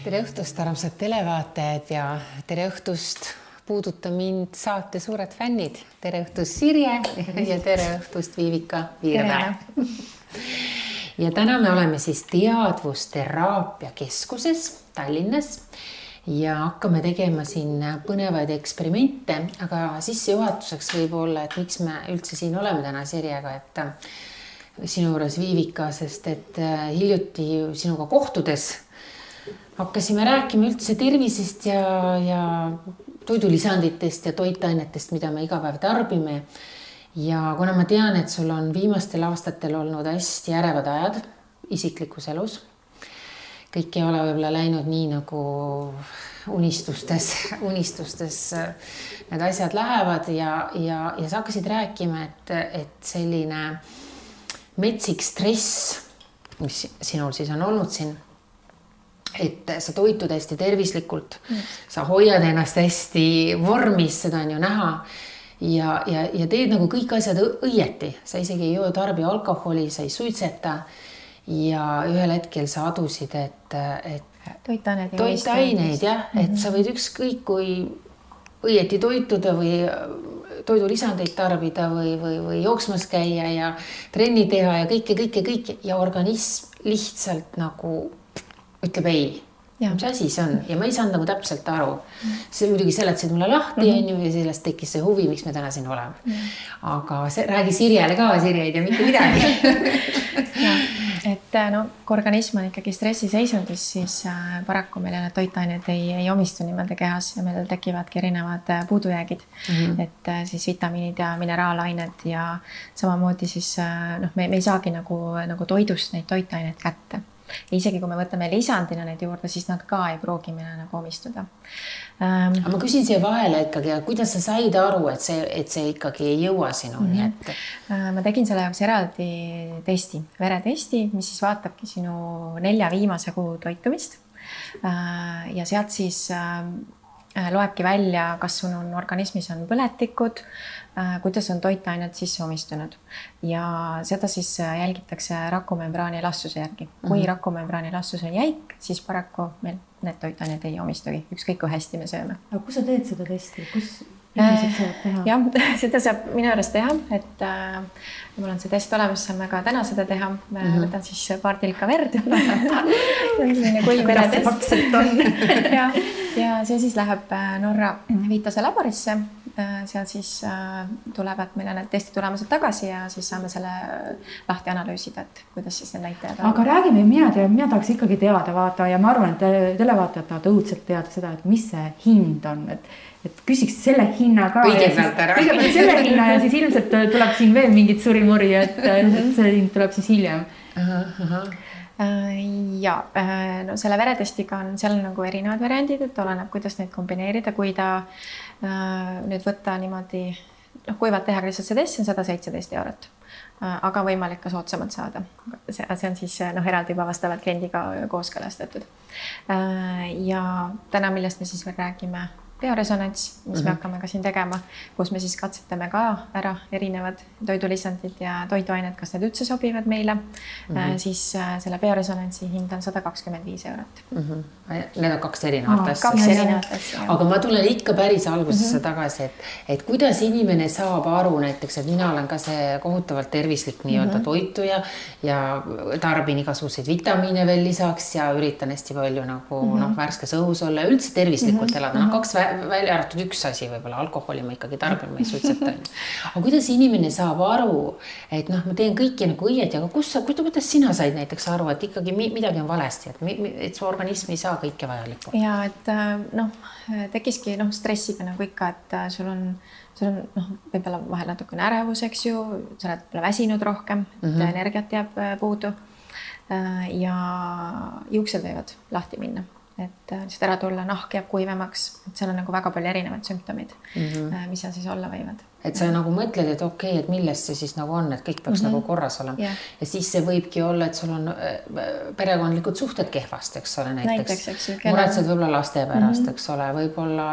Tere õhtust, armsad televaatajad ja tere õhtust puuduta mind saate suured fännid. Tere õhtust Sirje ja tere õhtust Viivika Viirmäe. Ja täna me oleme siis teadvusteraapia keskuses Tallinnas ja hakkame tegema siin põnevaid eksperimente, aga sissejuhatuseks võib olla, et miks me üldse siin oleme täna Sirjega, et sinu juures Viivika, sest et hiljuti sinuga kohtudes hakkasime rääkima üldse tervisest ja toidulisanditest ja toitainetest, mida me iga päev tarbime. Ja kuna ma tean, et sul on viimastel aastatel olnud hästi ärevad ajad isiklikus elus, kõik ei ole võib-olla läinud nii nagu unistustes need asjad lähevad ja sa hakkasid rääkima, et selline metsik stress, mis sinul siis on olnud siin, et sa toitud hästi tervislikult, sa hoiad ennast hästi vormis, seda on ju näha ja teed nagu kõik asjad õieti. Sa isegi ei joo tarbi alkoholi, sa ei suitseta ja ühel hetkel sa adusid, et toitaineid, jah, et sa võid ükskõik kui õieti toituda või toidulisandeid tarbida või jooksmas käia ja trenni teha ja kõike ja organism lihtsalt nagu ütleb ei. Mis asi see on? Ja ma ei saanud nagu täpselt aru. See muidugi seletasid mulle lahti ja sellest tekkis see huvi, miks me täna siin oleme. Aga räägi Sirjele ka, Sirje ei tea mitte midagi. Et kui organism on ikkagi stressiseisundis, siis paraku meile need toitained ei omistu niimoodi kehas ja meil tekivadki erinevad puudujäägid. Et siis vitamiinid ja mineraalained ja samamoodi siis me ei saagi nagu toidust neid toitaineid kätte. Ja isegi kui me võtame lisandina neid juurde, siis nad ka ei pruugi meile nagu omistuda. Aga ma küsin siia vahele ikkagi, kuidas sa said aru, et see ikkagi ei jõua sinuni? Ma tegin selle jaoks eraldi testi, veretesti, mis siis vaatabki sinu 4 viimase kuu toitumist. Ja sealt siis loebki välja, kas sul on organismis on põletikud, kuidas on toitained sisse omistunud ja seda siis jälgitakse rakumembraani elastsuse järgi. Kui rakumembraani elastsus on jäik, siis paraku meil need toitained ei omistugi, ükskõik kui hästi me sööme. Aga kus sa teed seda testi? Kus inimesed saavad teha? Jah, seda saab minu juures teha, et mul on see test olemas, saame ka täna seda teha. Võtan siis paar tilka verd. Kuidas see pakselt on? Ja see siis läheb Norra Vitase laborisse. Seal siis tulevad meile need testi tulemused tagasi ja siis saame selle lahti analüüsida, et kuidas siis need näitajad on. Aga räägime, mina tahaks ikkagi teada vaata ja ma arvan, et televaatajad tahavad õudselt teada seda, et mis see hind on, et küsiks selle hinna ka. Kõigepealt selle hinna ja siis ilmselt tuleb siin veel mingit surimuri, et see hind tuleb siis hiljem. Ja selle veretestiga on seal nagu erinevad variandid, et oleneb, kuidas neid kombineerida, kui ta nüüd võtta niimoodi, kuivalt teha lihtsalt see test, on 117 €, aga võimalik ka soodsamalt saada. See on siis eraldi juba vastavalt kliendiga kooskõlastatud. Ja täna, millest me siis veel räägime, bioresonants, mis me hakkame ka siin tegema, kus me siis katsetame ka ära erinevad toidulisandid ja toiduained, kas need üldse sobivad meile, siis selle bioresonantsi hind on 125 €. Need on 2 erinevat asja. 2 erinevat asja. Aga ma tulen ikka päris algusesse tagasi, et kuidas inimene saab aru näiteks, et mina olen ka see kohutavalt tervislik nii-öelda toituja ja tarbin igasuguseid vitamiine veel lisaks ja üritan hästi palju nagu värskes õhus olla ja üldse tervislikult elada. 2 välja arvatud üks asi, võib-olla alkoholi ma ikkagi tarbin, ma ei suitseta. Aga kuidas inimene saab aru, et ma teen kõiki nagu õieti, aga kuidas sina said näiteks aru, et ikkagi midagi on valesti, et su organism ei saa kõike vajalikku? Ja, et tekiski stressiga nagu ikka, et sul on võib-olla vahel natukene ärevus, eks ju, sa oled väsinud rohkem, et energiat jääb puudu ja juuksed võivad lahti minna. Et lihtsalt ära tulla, nahk jääb kuivemaks, et seal on nagu väga palju erinevaid sümptomid, mis seal siis olla võivad. et sa nagu mõtled, et okei, et millest see siis nagu on, et kõik peaks nagu korras olema. Ja siis see võibki olla, et sul on perekondlikud suhted kehvast, eks ole, näiteks. Muretsed võib-olla laste pärast, eks ole, võib-olla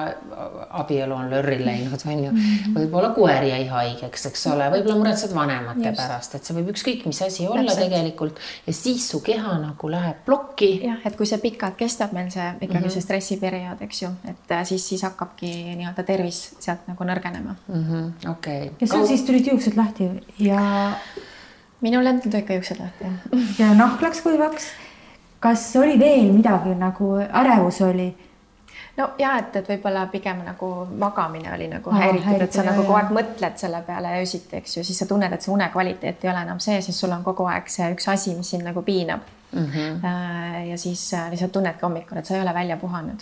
abielu on lörri läinud, on ju. Võib-olla koer jäi haigeks, eks ole, võib-olla muretsed vanemate pärast, et see võib ükskõik mis asi olla tegelikult ja siis su keha nagu läheb plokki. Jah, et kui see pikalt kestab meil see ikkagi see stressiperiood, eks ju, et siis hakkabki nii-öelda tervis sealt nagu nõrgenema. Okay. Ja sul siis tulid juuksed lahti ja... Minul endal tuli ikka juuksed lahti. Ja nahk läks kuivaks. Kas oli veel midagi nagu ärevus oli? No ja, et võib-olla pigem nagu magamine oli nagu häiritud, et sa nagu kogu aeg mõtled selle peale öösiti, eks ju, siis sa tunned, et see unekvaliteet ei ole enam see, siis sul on kogu aeg see üks asi, mis sind nagu piinab. Ja siis lihtsalt tunnedki hommikul, et sa ei ole välja puhanud.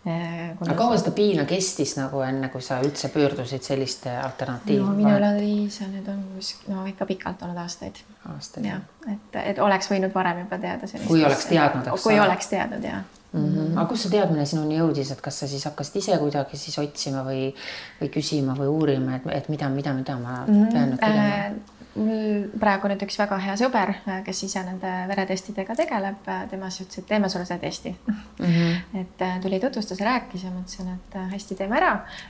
Aga kaua seda piina kestis nagu enne, kui sa üldse pöördusid selliste alternatiivi? No minu oli see nüüd on ikka pikalt olnud aastaid. Ja, et oleks võinud varem juba teada sellist. Kui oleks teadnud, eks kui oleks teadnud, jah. Aga kus see teadmine sinuni jõudis, et kas sa siis hakkasid ise kuidagi siis otsima või küsima või uurima, et mida ma pean nüüd tegema? Praegu nüüd üks väga hea sõber, kes ise nende veretestidega tegeleb, tema ütles, et teeme sulle see testi. Et tuli tutvustas ja rääkis ja mõtlesin, et hästi teeme ära.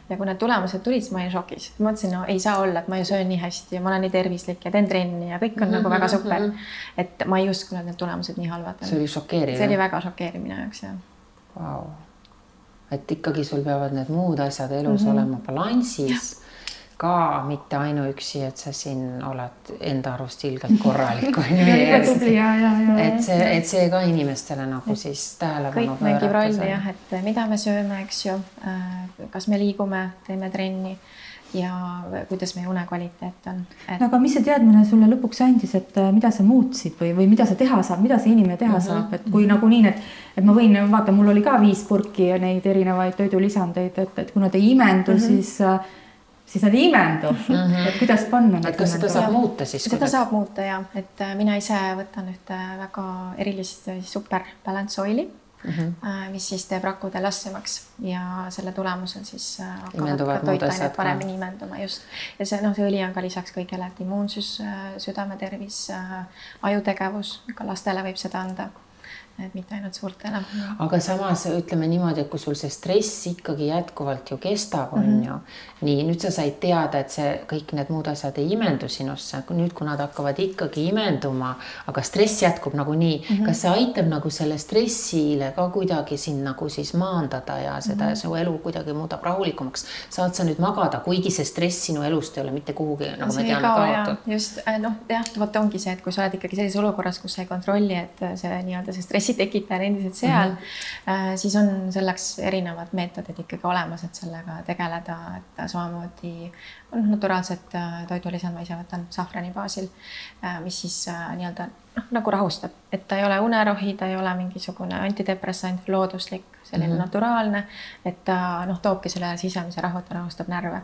Ja kui need tulemused tulid, siis ma olin šokis. Mõtlesin, no ei saa olla, et ma ju söön nii hästi ja ma olen nii tervislik ja teen trenni ja kõik on nagu väga super. Et ma ei uskunud, et need tulemused nii halvad. See oli šokeeriv. See oli väga šokeeriv minu jaoks, jah. Wow. Et ikkagi sul peavad need muud asjad elus olema balansis. Ka mitte ainuüksi, et sa siin oled enda arust ilgelt korralik. Et see ka inimestele nagu siis tähelepanu kõik mängib rolli, jah, et mida me sööme, eks ju, kas me liigume, teeme trenni ja kuidas meie unekvaliteet on. Aga mis see teadmine sulle lõpuks andis, et mida sa muutsid või mida sa teha saab, mida see inimene teha saab, et kui nagu nii, et ma võin, vaata, mul oli ka 5 purki ja neid erinevaid toidulisandeid, et kui nad ei imendu, siis nad ei imendu, et kuidas panna. Et kas seda saab muuta siis? Seda saab muuta, jah. Et mina ise võtan ühte väga erilist super balance oili, mis siis teeb rakkude lassemaks ja selle tulemusel siis hakkavad ka toitainet paremini imenduma just. Ja see õli on ka lisaks kõigele, et immuunsus, südametervis, ajutegevus, ka lastele võib seda anda. Et mitte ainult suurtele. Aga samas ütleme niimoodi, et kui sul see stress ikkagi jätkuvalt ju kestab, on ju. Nii, nüüd sa said teada, et see kõik need muud asjad ei imendu sinusse. Nüüd, kui nad hakkavad ikkagi imenduma, aga stress jätkub nagu nii, kas see aitab nagu selle stressile ka kuidagi siin nagu siis maandada ja seda su elu kuidagi muudab rahulikumaks? Saad sa nüüd magada, kuigi see stress sinu elust ei ole mitte kuhugi, nagu me teame, kaotud? Just, võt ongi see, et kui sa oled ikkagi sellises olukorras, kus sa ei kontrolli, et see nii-öelda see stressi tekitaja endiselt seal, siis on selleks erinevad meetodid ikkagi olemas, et sellega tegeleda, et samamoodi naturaalset toidulisand ma ise võtan safrani baasil, mis siis nii-öelda nagu rahustab, et ta ei ole unerohi, ta ei ole mingisugune antidepressant, looduslik, selline naturaalne, et ta toobki selle sisemise rahu, ta rahustab närve.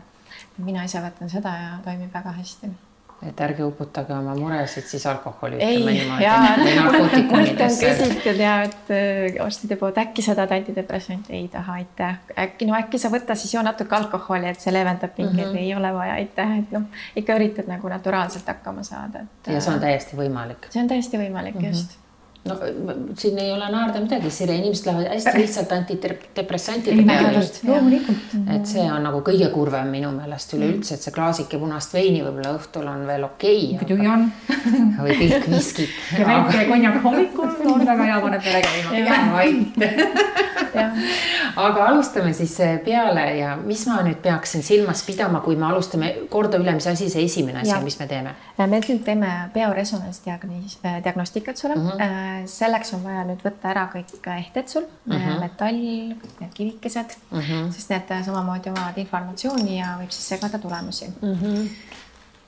Mina ise võtan seda ja toimib väga hästi. Et ärge uputage oma muresid siis alkoholi ütleme niimoodi. Mult on küsitud ja, et arstide poolt äkki seda antidepressant ei taha, aitäh. Äkki sa võtta siis natuke alkoholi, et see leevendab pingeid, ei ole vaja, aitäh. Et ikka üritad nagu naturaalselt hakkama saada. Ja see on täiesti võimalik. See on täiesti võimalik, just. No siin ei ole naarda midagi, Sire, inimesed lähevad hästi lihtsalt antidepressantide peale. Et see on nagu kõige kurvem minu meelest üleüldse, et see klaasike punast veini võib-olla õhtul on veel okei. Või pilk viskit. Ja väike konjak hommikul on väga hea paneb peale Aga alustame siis peale ja mis ma nüüd peaksin silmas pidama, kui me alustame korda üle, mis asi see esimene asi, mis me teeme? Me nüüd teeme bioresonance-diagnostikat sulle. Selleks on vaja nüüd võtta ära kõik ehted sul, metall, need kivikesed, sest need samamoodi omavad informatsiooni ja võib siis segada tulemusi.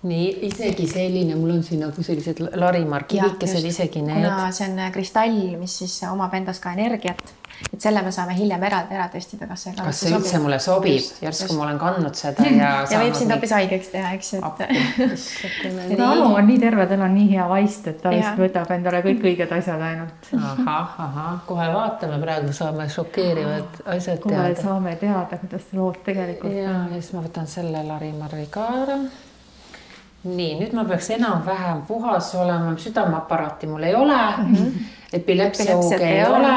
Nii, isegi selline, mul on siin nagu sellised Larimar kivikesed isegi need. Kuna see on kristall, mis siis omab endas ka energiat, et selle me saame hiljem eraldi ära testida, kas see üldse mulle sobib, järsku ma olen kandnud seda ja võib sind hoopis haigeks teha, eks, et Alu on nii terve, tal on nii hea vaist, et ta vist võtab endale kõik õiged asjad ainult. Kohe vaatame, praegu saame šokeerivad asjad teada. Kohe saame teada, kuidas lood tegelikult. Ja siis ma võtan selle Lari-Marri ka ära. Nii, nüüd ma peaks enam-vähem puhas olema, südameaparaati mul ei ole, epilepsiooge ei ole.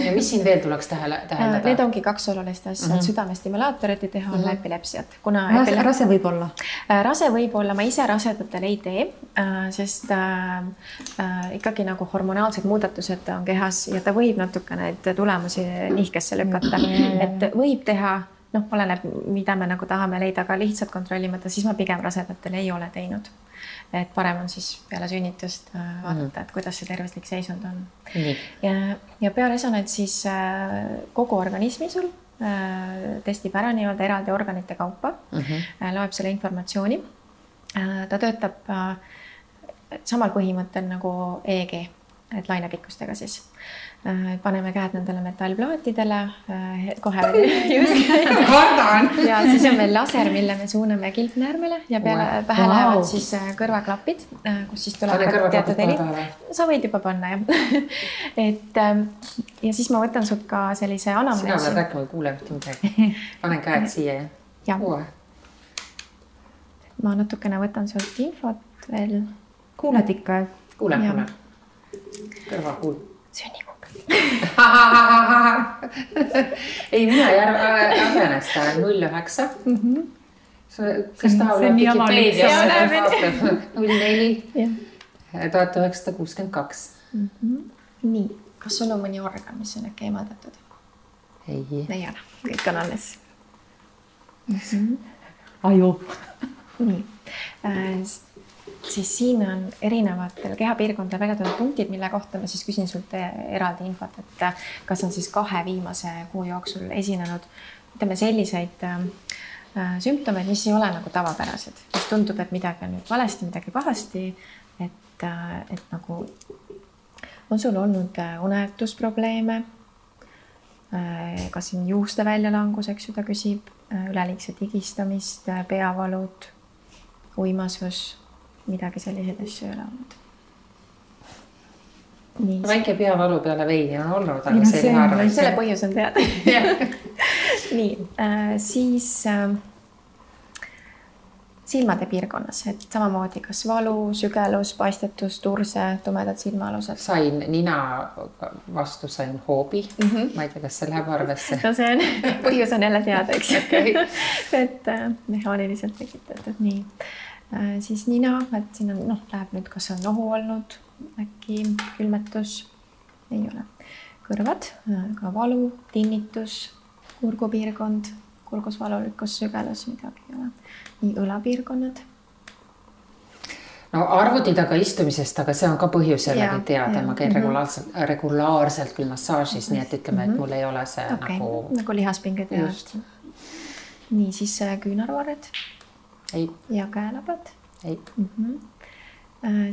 Ja mis siin veel tuleks täheldada? Need ongi 2 olulist asja, südamestimulaatorit ei teha olla epilepsiat. Rase võib olla? Rase võib olla, ma ise rasedatel ei tee, sest ikkagi nagu hormonaalsed muudatused on kehas ja ta võib natuke neid tulemusi nihkesse lükata, et võib teha. Oleneb, mida me nagu tahame leida, aga lihtsalt kontrollimata, siis ma pigem rasedatel ei ole teinud. Et parem on siis peale sünnitust vaadata, et kuidas see tervislik seisund on. Ja bioresonants siis kogu organismi sul testib ära nii-öelda eraldi organite kaupa, loeb selle informatsiooni. Ta töötab samal põhimõttel nagu EEG, et lainepikkustega siis. Paneme käed nendele metallplaatidele, kohe just. Ja siis on meil laser, mille me suuname kilpnäärmele ja peale pähe lähevad siis kõrvaklapid, kus siis tuleb teatud heli. Sa võid juba panna, jah. Ja siis ma võtan sult ka sellise anamneesi. Sina oled rääkima, kuule midagi. Panen käed siia, jah? Ma natukene võtan sult infot veel. Kuuled ikka? Kuule. Kõrva kuul. Sünnikuga. Ei, mina ei häbenesta 09. Kas tahab Wikipedia 04 1962. Nii, kas sul on mõni organ, mis on äkki eemaldatud? Ei ole, kõik on alles. Aju. Nii, siis siin on erinevatel kehapiirkondadel väga teatud punktid, mille kohta ma siis küsin sult eraldi infot, et kas on siis 2 viimase kuu jooksul esinenud, ütleme selliseid sümptomeid, mis ei ole nagu tavapärased, mis tundub, et midagi on nüüd valesti, midagi pahasti, et nagu on sul olnud unetusprobleeme, kas siin juuste väljalangus, eks ju, ta küsib, üleliigset higistamist, peavalud, uimasus, midagi selliseid asju ei ole olnud. Väike peavalu peale veini on olnud, aga see ei harva. Selle põhjus on teada. Nii, siis silmade piirkonnas, et samamoodi kas valu, sügelus, paistetus, turse, tumedad silmaalused. Sain nina vastu, sain hoobi. Ma ei tea, kas see läheb arvesse. No see on, põhjus on jälle teada, eks. Et mehaaniliselt tekitatud, nii. Siis nina, et siin on, läheb nüüd, kas on nohu olnud, äkki külmetus, ei ole. Kõrvad, ka valu, tinnitus, kurgupiirkond, kurgusvalulikkus, sügelus, midagi ei ole. Nii õlapiirkonnad. No arvuti taga istumisest, aga see on ka põhjus jällegi teada. Ma käin regulaarselt küll massaažis, nii et ütleme, et mul ei ole see nagu lihaspinged. Nii, siis küünarvarred. Ei. Ja käelabad. Ei.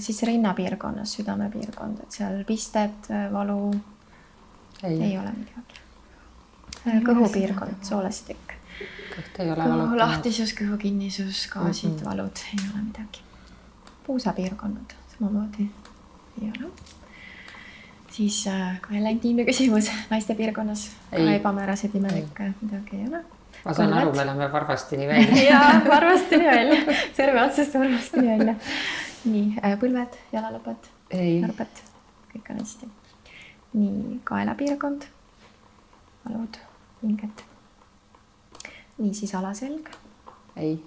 Siis rinnapiirkonnas, südamepiirkond, et seal pisted, valu, ei ole midagi. Kõhupiirkond, soolestik. Kõhu lahtisus, kõhu kinnisus, gaasid, valud, ei ole midagi. Puusapiirkonnad, samamoodi ei ole. Siis ka jälle intiimne küsimus, naiste piirkonnas, ka ebamäärased imelikke, midagi ei ole. Ma saan aru, me läheme varvastini välja. Jaa, varvastini välja. Serve otsast varvastini välja. Nii, põlved, jalalõpad, narbed, kõik on hästi. Nii, kaelapiirkond, valud, hinged. Nii, siis alaselg. Ei.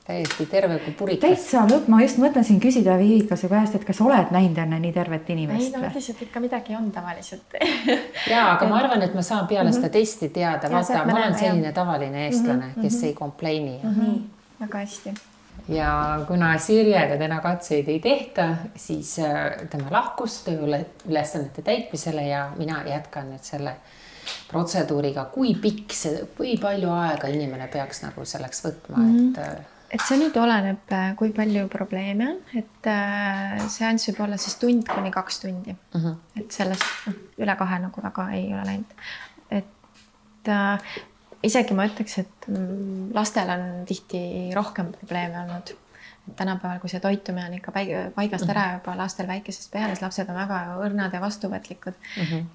Täiesti terve kui purikas. Täitsa lõpp, ma just mõtlesin küsida Viivikase käest, et kas oled näinud enne nii tervet inimest? Ei, no mõtlesin, et ikka midagi on tavaliselt. Jaa, aga ma arvan, et ma saan peale seda testi teada. Vaata, ma olen selline tavaline eestlane, kes ei kompleini. Väga hästi. Ja kuna Sirjega täna katseid ei tehta, siis tema lahkus tööülesannete täitmisele ja mina jätkan nüüd selle protseduuriga. Kui pikk see, kui palju aega inimene peaks nagu selleks võtma, et et see nüüd oleneb, kui palju probleeme on, et seanss võib olla siis 1 kuni 2 tundi. Et sellest üle 2 nagu väga ei ole läinud. Et isegi ma ütleks, et lastel on tihti rohkem probleeme olnud. Et tänapäeval, kui see toitumine on ikka paigast ära juba lastel väikesest peale, siis lapsed on väga õrnad ja vastuvõtlikud,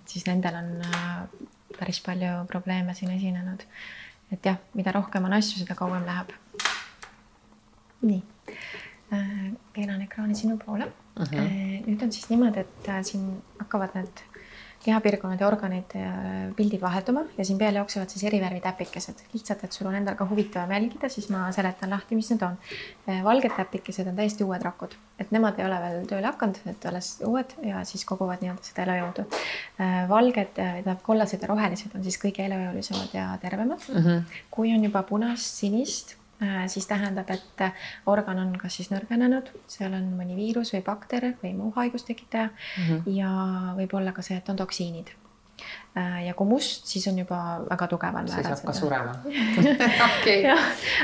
siis nendel on päris palju probleeme siin esinenud. Et jah, mida rohkem on asju, seda kauem läheb. Nii, keeran ekraani sinu poole. Nüüd on siis niimoodi, et siin hakkavad need kehapiirkonnad ja organid pildid vahetuma ja siin peal jooksevad siis eri värvi täpikesed. Lihtsalt, et sul on endal ka huvitavam jälgida, siis ma seletan lahti, mis need on. Valged täpikesed on täiesti uued rakud, et nemad ei ole veel tööle hakanud, et alles uued ja siis koguvad nii-öelda seda elujõudu. Valged, kollased ja rohelised on siis kõige elujõulisemad ja tervemad. Kui on juba punast, sinist, siis tähendab, et organ on kas siis nõrgenenud, seal on mõni viirus või bakter või muu haigustekitaja ja võib olla ka see, et on toksiinid. Ja kui must, siis on juba väga tugeval määral. Siis hakkab surema. Okay.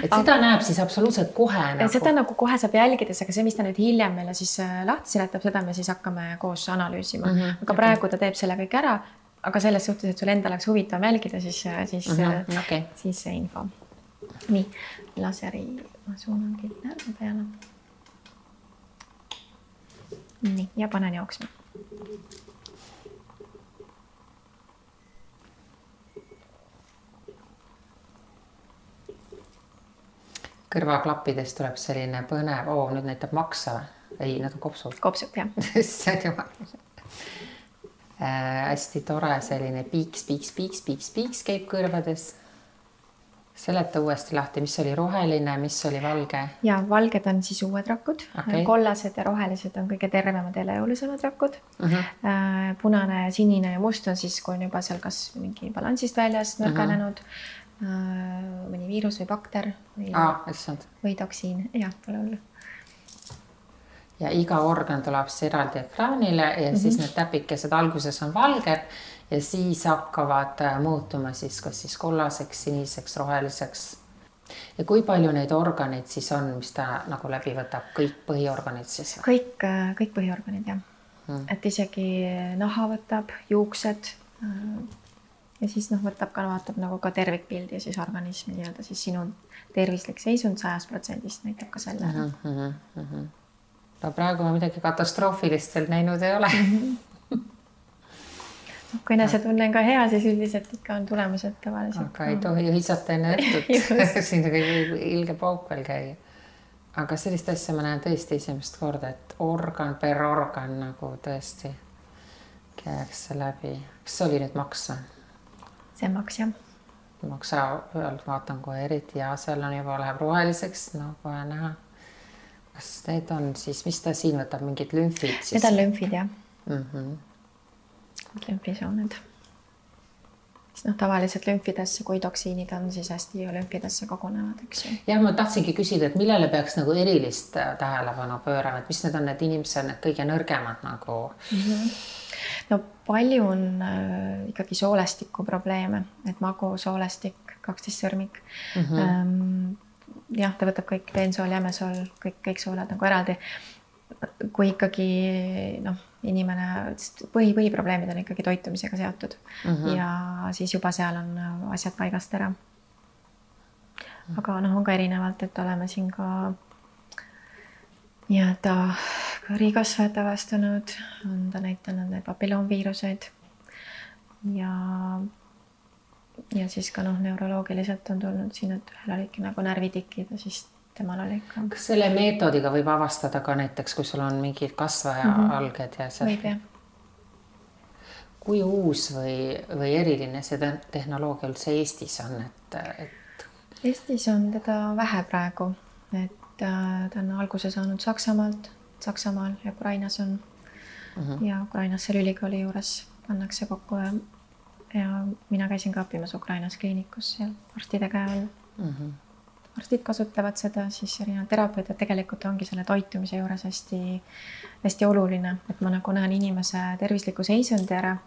Et seda näeb siis absoluutselt kohe. Seda nagu kohe saab jälgides, aga see, mis ta nüüd hiljem meile siis lahti seletab, seda me siis hakkame koos analüüsima. Aga praegu ta teeb selle kõik ära, aga selles suhtes, et sul enda oleks huvitav jälgida, siis see info. Nii, laseri ma suunangi närva peale. Nii, ja panen jooksma. Kõrvaklappidest tuleb selline põnev, nüüd näitab maksa. Ei, need on kopsud. Kopsud, jah. See on jumal. Hästi tore selline piiks käib kõrvades. Seleta uuesti lahti, mis oli roheline, mis oli valge? Ja valged on siis uued rakud. Kollased ja rohelised on kõige tervemad ja elujõulisemad rakud. Punane, sinine ja must on siis, kui on juba seal kas mingi balansist väljas nõrgenenud, mõni viirus või bakter või toksiin. Jah, pole hullu. Ja iga organ tuleb eraldi ekraanile ja siis need täpikesed alguses on valged ja siis hakkavad muutuma siis kas siis kollaseks, siniseks, roheliseks. Ja kui palju neid organeid siis on, mis ta nagu läbi võtab? Kõik põhiorganid siis? Kõik põhiorganid, jah. Et isegi naha võtab, juuksed ja siis võtab ka, vaatab nagu ka tervikpildi ja siis organismi nii-öelda siis sinu tervislik seisund 100% näitab ka selle. No praegu ma midagi katastroofilist veel näinud ei ole. Kui enesetunne on ka hea, siis üldiselt ikka on tulemused tavaliselt. Aga ei tohi hõisata enne õhtut. Siin ilge pauk veel käia. Aga sellist asja ma näen tõesti esimest korda, et organ per organ nagu tõesti käeks läbi. Kas see oli nüüd maks? See maks, jah. Maksa pealt vaatan kohe eriti ja seal on juba läheb roheliseks, kohe näha. Kas need on siis, mis ta siin võtab, mingid lümfid siis? Need on lümfid, jah. Lümfisooned. Tavaliselt lümfidesse, kui toksiinid on, siis hästi lümfidesse kogunevad, eks ju. Jah, ma tahtsingi küsida, et millele peaks nagu erilist tähelepanu pöörama, et mis need on need inimesed, need kõige nõrgemad nagu? No palju on ikkagi soolestiku probleeme, et magu, soolestik, 12 sõrmik. Jah, ta võtab kõik peensool, jämesool, kõik sooled nagu eraldi. Kui ikkagi inimene, põhiprobleemid on ikkagi toitumisega seotud ja siis juba seal on asjad paigast ära. Aga on ka erinevalt, et oleme siin ka nii-öelda kõrikasvajate avastanud, on ta näitanud need papilloonviiruseid ja siis ka neuroloogiliselt on tulnud siin, et ühel olidki nagu närvitikid ja siis temal oli ikka. Kas selle meetodiga võib avastada ka näiteks, kui sul on mingid kasvaja alged ja see? Võib, jah. Kui uus või eriline see tehnoloogia üldse Eestis on? Eestis on teda vähe praegu, et ta on alguse saanud Saksamaal ja Ukrainas on ja Ukrainas seal ülikooli juures pannakse kokku ja mina käisin ka õppimas Ukrainas kliinikus seal arstide käe all. Arstid kasutavad seda, siis erinevad terapeudid tegelikult ongi selle toitumise juures hästi oluline, et ma nagu näen inimese tervisliku seisundi ära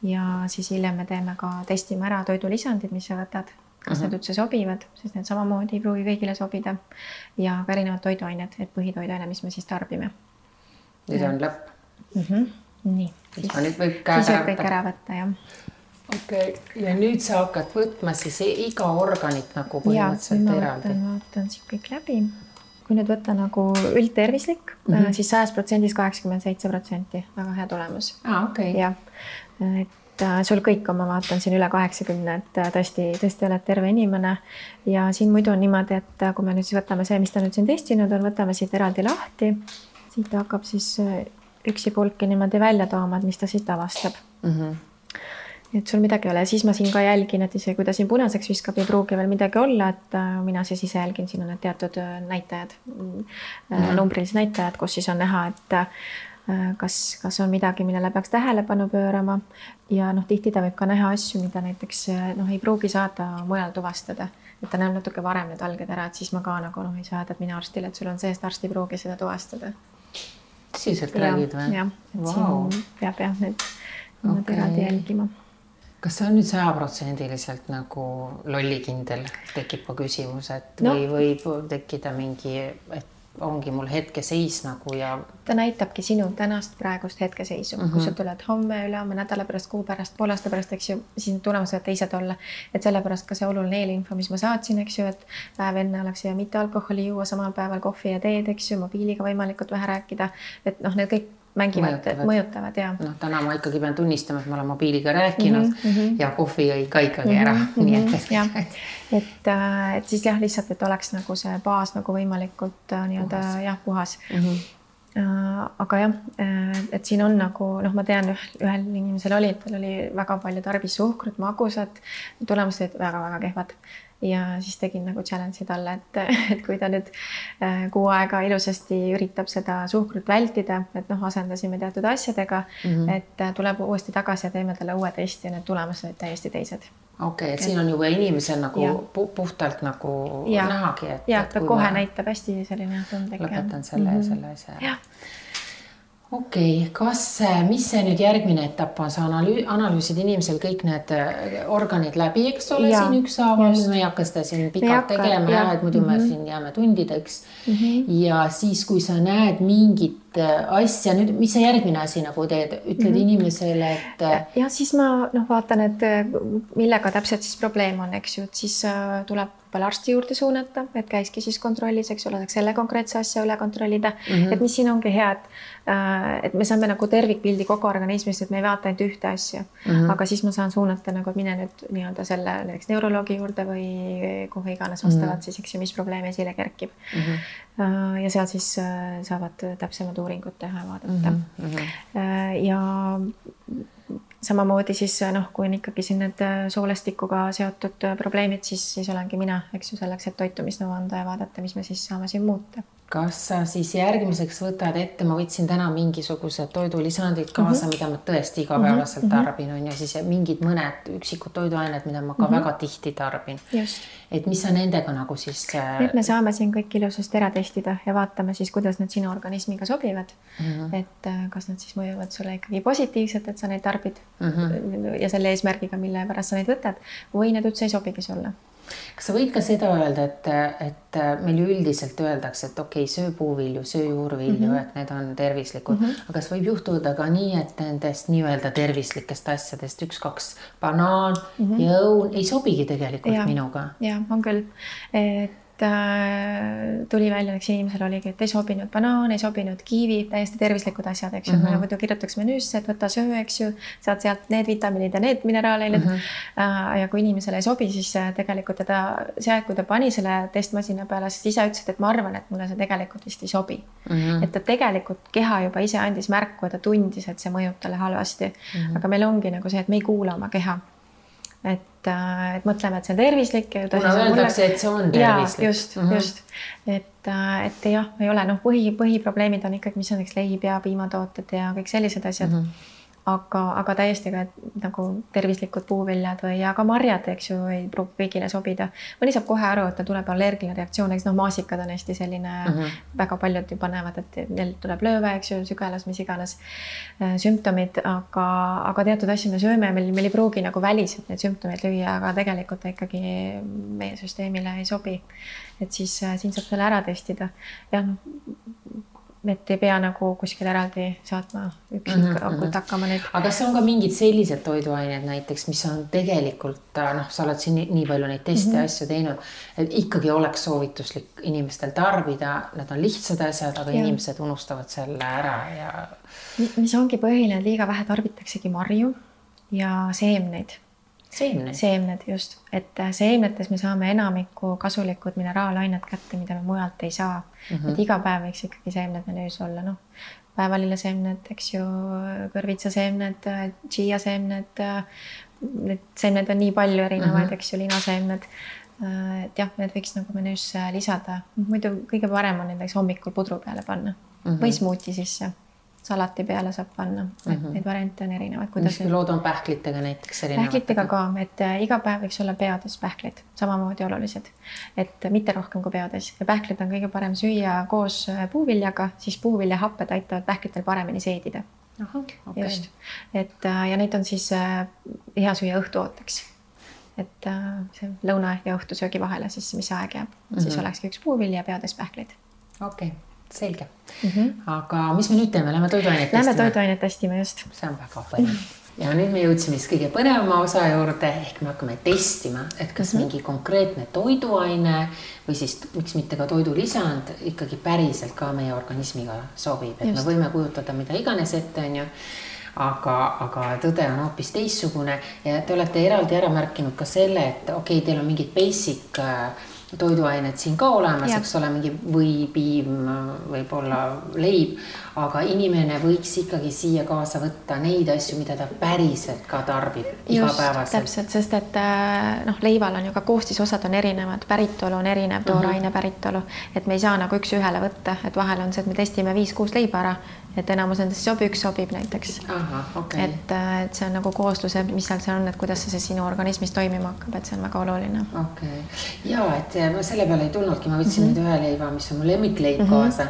ja siis hiljem me teeme ka testime ära toidulisandid, mis sa võtad kas need üldse sobivad, sest need samamoodi ei pruugi kõigile sobida ja ka erinevad toiduained, et põhitoiduaine, mis me siis tarbime. Nüüd on lõpp. Nii. Siis nüüd võib kõik ära võtta, jah. Okay. Ja nüüd sa hakkad võtma siis iga organit nagu põhimõtteliselt eraldi. Vaatan siin kõik läbi. Kui nüüd võtta nagu üldtervislik, siis 100% 87%. Väga hea tulemus. Okay. Ja, et sul kõik on, ma vaatan siin üle 80, et tõesti oled terve inimene. Ja siin muidu on niimoodi, et kui me nüüd siis võtame see, mis ta nüüd siin testinud on, võtame siit eraldi lahti. Siit hakkab siis üksi pulki niimoodi välja tooma, mis ta siit avastab. Et sul midagi ei ole. Siis ma siin ka jälgin, et isegi kui ta siin punaseks viskab, ei pruugi veel midagi olla, et mina siis ise jälgin, siin on need teatud näitajad, numbrilised näitajad, kus siis on näha, et kas on midagi, millele peaks tähelepanu pöörama ja tihti ta võib ka näha asju, mida näiteks ei pruugi saada mujal tuvastada, et ta näeb natuke varem need alged ära, et siis ma ka nagu ei saada mina arstile, et sul on see, et arst ei pruugi seda tuvastada. Tõsiselt räägid või? Jah, et siin peab need eraldi jälgima. Kas see on nüüd 100% nagu lollikindel, tekib ka küsimus, et või võib tekkida mingi, et ongi mul hetkeseis nagu ja... Ta näitabki sinu tänast praegust hetkeseisu. Kui sa tuled homme, ülehomme, nädala pärast, kuu pärast, pool aasta pärast, eks ju, siis tulemused võivad teised olla. Et sellepärast ka see oluline eelinfo, mis ma saatsin, eks ju, et päev enne oleks ja mitte alkoholi juua samal päeval kohvi ja teed, eks ju, mobiiliga võimalikult vähe rääkida. Et need kõik mõjutavad ja. Täna ma ikkagi pean tunnistama, et ma olen mobiiliga rääkinud ja kohvi jõi ka ikkagi ära. Et siis jah, lihtsalt, et oleks nagu see baas nagu võimalikult puhas. Aga jah, et siin on nagu, ma tean, ühel inimesel oli, et tal oli väga palju tarbis suhkrut, magusat, tulemused olid väga-väga kehvad. Ja siis tegin nagu challenge'i talle, et kui ta nüüd kuu aega ilusasti üritab seda suhkrut vältida, et asendasime teatud asjadega, et tuleb uuesti tagasi ja teeme talle uue testi ja need tulemused olid täiesti teised. Okei, et siin on juba inimesel nagu puhtalt nagu nähagi. Ja, ta kohe näitab hästi selline tundlik. Lõpetan selle asja. Jah. Okei, mis see nüüd järgmine etapp on? Sa analüüsid inimesel kõik need organid läbi, eks ole, siin ükshaaval. Me ei hakka seda siin pikalt tegema, et muidu me siin jääme tundideks. Ja siis, kui sa näed mingit asja, nüüd, mis see järgmine asi nagu teed? Ütled inimesele, et... Ja siis ma vaatan, et millega täpselt siis probleem on, eks ju, et siis tuleb veel arsti juurde suunata, et käiski siis kontrollis, eks ole, selle konkreetse asja üle kontrollida. Et mis siin ongi hea, et me saame nagu tervikpildi kogu organismist, et me ei vaata ainult ühte asja. Aga siis ma saan suunata nagu, et mine nüüd nii-öelda selle näiteks neuroloogi juurde või kuhu iganes vastavalt siis, eks ju, mis probleem esile kerkib. Ja seal siis saavad täpsemad uuringut teha ja vaadata. Ja samamoodi siis, kui on ikkagi siin need soolestikuga seotud probleemid, siis olengi mina, eks ju, selleks, et toitumisnõu anda ja vaadata, mis me siis saame siin muuta. Kas sa siis järgmiseks võtad ette, ma võtsin täna mingisugused toidulisandid kaasa, mida ma tõesti igapäevaselt tarbin on ja siis mingid mõned üksikud toiduained, mida ma ka väga tihti tarbin. Just. Et mis sa nendega nagu siis... Nüüd me saame siin kõik ilusasti ära testida ja vaatame siis, kuidas need sinu organismiga sobivad. Et kas nad siis mõjuvad sulle ikkagi positiivselt, et sa neid tarbid ja selle eesmärgiga, mille pärast sa neid võtad või need üldse ei sobigi sulle. Kas sa võid ka seda öelda, et meil üldiselt öeldakse, et okei, söö puuvilju, söö juurvilju, et need on tervislikud. Aga kas võib juhtuda ka nii, et nendest nii-öelda tervislikest asjadest 1-2 banaan ja õun ei sobigi tegelikult minuga? Ja, on küll. Tuli välja, eks inimesel oligi, et ei sobinud banaan, ei sobinud kiivi, täiesti tervislikud asjad, eks ju. Me muidu kirjutaks menüüsse, et võta söö, eks ju, saad sealt need vitamiinid ja need mineraaleid. Ja kui inimesele ei sobi, siis tegelikult kui ta pani selle testmasina peale, siis ise ütles, et ma arvan, et mulle see tegelikult vist ei sobi. Et ta tegelikult keha juba ise andis märku ja ta tundis, et see mõjub talle halvasti. Aga meil ongi nagu see, et me ei kuula oma keha. Et mõtleme, et see on tervislik. Kuna öeldakse, et see on tervislik. Just. Et jah, ei ole, põhiprobleemid on ikkagi, mis on leib ja piimatooted ja kõik sellised asjad. aga täiesti ka nagu tervislikud puuviljad või aga marjad, eks ju, ei pruugi kõigile sobida. Mõni saab kohe aru, et ta tuleb allergiline reaktsioon, eks maasikad on hästi selline, väga paljud ju panevad, et neil tuleb lööve, eks ju, sügelas, mis iganes sümptomid, aga teatud asju me sööme, meil ei pruugi nagu väliselt neid sümptomeid lüüa, aga tegelikult ta ikkagi meie süsteemile ei sobi. Et siis siin saab selle ära testida. Ja et ei pea nagu kuskil eraldi saatma üksikult hakkama neid. Aga kas on ka mingid sellised toiduained näiteks, mis on tegelikult, sa oled siin nii palju neid teste asju teinud, et ikkagi oleks soovituslik inimestel tarbida, need on lihtsad asjad, aga inimesed unustavad selle ära ja... Mis ongi põhiline, liiga vähe tarbitaksegi marju ja seemneid. Seemned, just. Et seemnetes me saame enamikku kasulikud mineraalainet kätte, mida me mujalt ei saa. Et iga päev võiks ikkagi seemned menüüs olla. Päevalilleseemned, eks ju, kõrvitsaseemned, chia-seemned. Need seemned on nii palju erinevaid, eks ju, linaseemned. Et jah, need võiks nagu menüüs lisada. Muidu kõige parem on näiteks hommikul pudru peale panna või smuuti sisse. Salati peale saab panna, et neid variante on erinevad. Mis lood on pähklitega näiteks erinevad? Pähklitega ka, et iga päev võiks olla peades pähklid, samamoodi olulised, et mitte rohkem kui peades. Ja pähklid on kõige parem süüa koos puuviljaga, siis puuviljahapped aitavad pähklitel paremini seedida. Just. Ja neid on siis hea süüa õhtuooteks. Et see lõuna ja õhtusöögi vahele, siis mis aeg jääb. Siis olekski üks puuvilja ja peades pähklid. Okei. Selge. Aga mis me nüüd teeme? Lähme toiduainet testima? Lähme toiduainet testima, just. See on väga põnev. Ja nüüd me jõudsime siis kõige põnevama osa juurde, ehk me hakkame testima, et kas mingi konkreetne toiduaine või siis miks mitte ka toidulisand ikkagi päriselt ka meie organismiga sobib. Et me võime kujutada mida iganes ette, on ju. Aga tõde on hoopis teissugune ja te olete eraldi ära märkinud ka selle, et okei, teil on mingid basic toiduained siin ka olemas, eks ole, mingi või piim, võib-olla leib, aga inimene võiks ikkagi siia kaasa võtta neid asju, mida ta päriselt ka tarbib igapäevaselt. Täpselt, sest et leival on ju ka koostisosad on erinevad, päritolu on erinev, tooraine päritolu, et me ei saa nagu üks ühele võtta, et vahel on see, et me testime 5-6 leiba ära, et enamus nendest üks sobib näiteks. Et see on nagu koosluse, mis seal on, et kuidas see sinu organismis toimima hakkab, et see on väga oluline. Ja, et ma selle peale ei tulnudki, ma võtsin nüüd ühe leiva, mis on mu lemmikleib kaasa,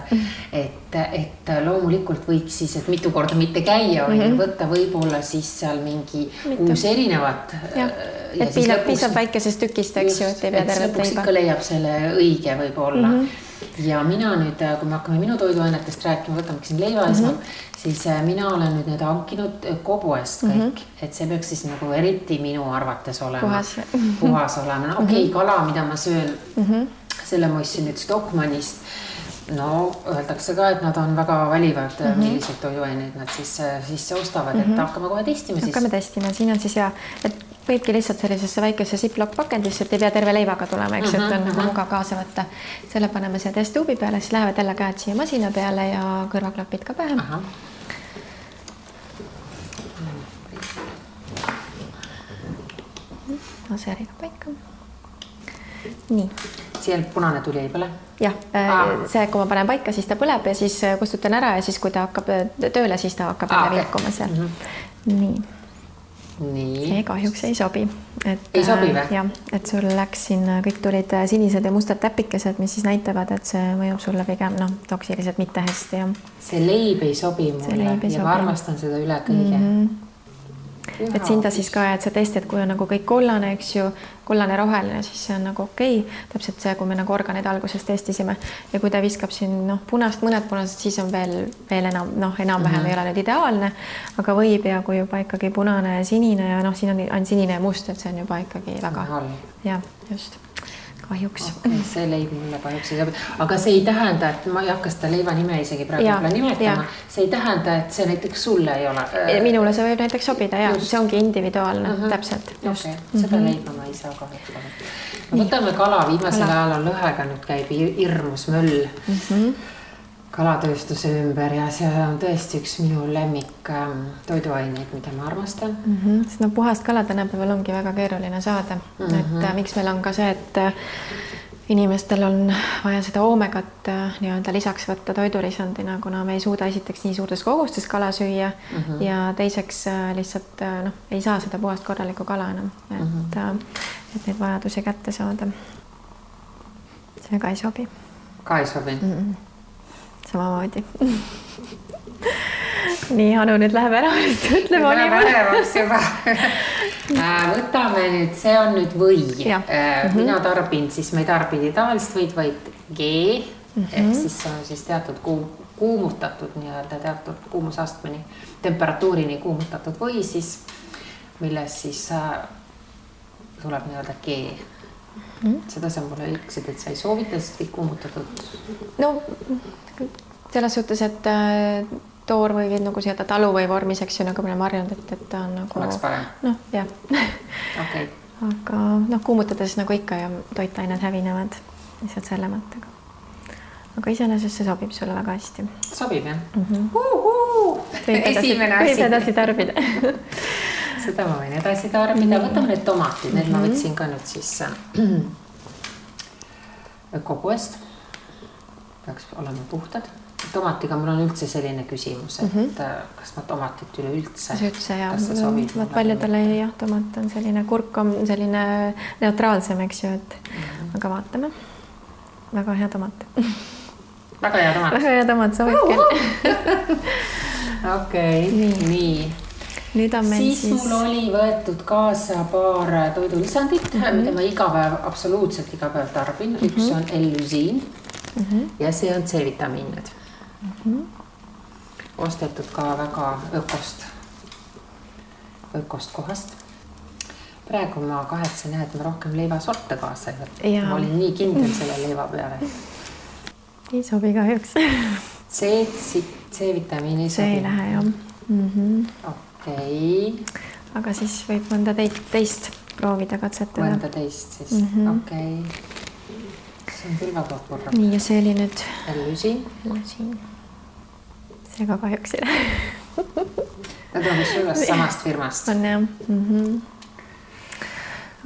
et loomulikult võiks siis, et mitu korda mitte käia, võtta võib-olla siis seal mingi 6 erinevat. Et piisab väikesest tükist, eks ju, et ei pea tervet leiba. Lõpuks ikka leiab selle õige võib-olla. Ja mina nüüd, kui me hakkame minu toiduainetest rääkima, võtame siin leiva esmalt, siis mina olen nüüd need hankinud ökopoest kõik, et see peaks siis nagu eriti minu arvates olema. Puhas olema. Okei, kala, mida ma söön, selle ma ostsin nüüd Stockmannist. No, öeldakse ka, et nad on väga valivad, millised toiduaineid nad siis ostavad, et hakkame kohe testima siis. Hakkame testima, siin on siis et võibki lihtsalt sellisesse väikesse Ziploc pakendisse, et ei pea terve leivaga tulema, eks, et on nagu mugav kaasa võtta. Selle paneme siia testuubi peale, siis lähevad jälle käed siia masina peale ja kõrvaklapid ka pähe. Aseriga paika. Nii. Siia punane tuli ei põle? Jah, see, kui ma panen paika, siis ta põleb ja siis kustutan ära ja siis, kui ta hakkab tööle, siis ta hakkab vilkuma seal. Nii. See kahjuks ei sobi. Ei sobi või? Jah, et sul läks siin, kõik tulid sinised ja mustad täpikesed, mis siis näitavad, et see mõjub sulle pigem toksiliselt mitte hästi. See leib ei sobi mulle ja ma armastan seda üle kõige. Et siin ta siis ka, et see test, et kui on nagu kõik kollane, eks ju, kollane roheline, siis see on nagu okei. Täpselt see, kui me nagu organid alguses testisime. Ja kui ta viskab siin punast, mõned punased, siis on veel enam-vähem ei ole nüüd ideaalne, aga võib ja kui juba ikkagi punane ja sinine ja siin on sinine ja must, et see on juba ikkagi väga. Ja, just. Kahjuks. See leib mulle kahjuks ei sobi. Aga see ei tähenda, et ma ei hakka seda leiva nime isegi praegu nimetama. See ei tähenda, et see näiteks sulle ei ole. Minule see võib näiteks sobida, ja see ongi individuaalne, täpselt. Seda leiba ma ei saa kahjuks. Võtame kala, viimasel ajal on lõhega, nüüd käib hirmus möll kalatööstuse ümber ja see on tõesti üks minu lemmik toiduaineid, mida ma armastan. Sest puhast kala tänapäeval ongi väga keeruline saada. Et miks meil on ka see, et inimestel on vaja seda oomegat nii-öelda lisaks võtta toidulisandina, kuna me ei suuda esiteks nii suurtes kogustes kala süüa ja teiseks lihtsalt ei saa seda puhast korralikku kala enam, et neid vajadusi kätte saada. See ka ei sobi. Ka ei sobi? Samamoodi. Nii, Anu nüüd läheb ära, ütleb olivaks juba. Võtame nüüd, see on nüüd või. Mina tarbin, siis me ei tarbidi tavalist võid, vaid G, ehk siis see on siis teatud kuumutatud nii-öelda teatud kuumusastmeni, temperatuurini kuumutatud või siis, milles siis tuleb nii-öelda G. Seda sa mulle ütlesid, et sa ei soovita, sest kõik kuumutatud? No, selles suhtes, et toor või nagu seda talu või vormis, eks ju, nagu me oleme harjunud, et ta on nagu... Oleks parem? Noh, jah. Okay. Aga kuumutades nagu ikka ja toitained hävinevad lihtsalt selle mõttega. Aga iseenesest see sobib sulle väga hästi. Sobib, jah? Esimene asi. Võib edasi tarbida. Seda ma võin edasi tarbida. Võtame need tomatid. Need ma võtsin ka nüüd siis ökopoest. Peaks olema puhtad. Tomatiga mul on üldse selline küsimus, et kas ma tomatit üleüldse? Üldse, jah. Paljudele jah, tomat on selline, kurk on selline neutraalsem, eks ju, et aga vaatame. Väga hea tomat. Väga hea tomat? Väga hea tomat, sobib küll. Okei, nii. Nüüd on meil siis mul oli võetud kaasa paar toidulisandit, mida ma iga päev, absoluutselt iga päev tarbin. Üks on L-lüsiin ja see on C-vitamiinid. Ostetud ka väga ökost kohast. Praegu ma kahetsen, et ma rohkem leivasorte kaasa ei võtta. Ma olin nii kindel selle leiva peale. Ei sobi kahjuks. C-vitamiini sobi. See ei lähe, jah. Okei. Aga siis võib mõnda teist proovida katsetada. Mõnda teist siis, okei. See on küll väga korra. Nii, ja see oli nüüd... L-lüsiin. See ka kahjuks ei lähe. Nad on vist üles samast firmast. On, jah.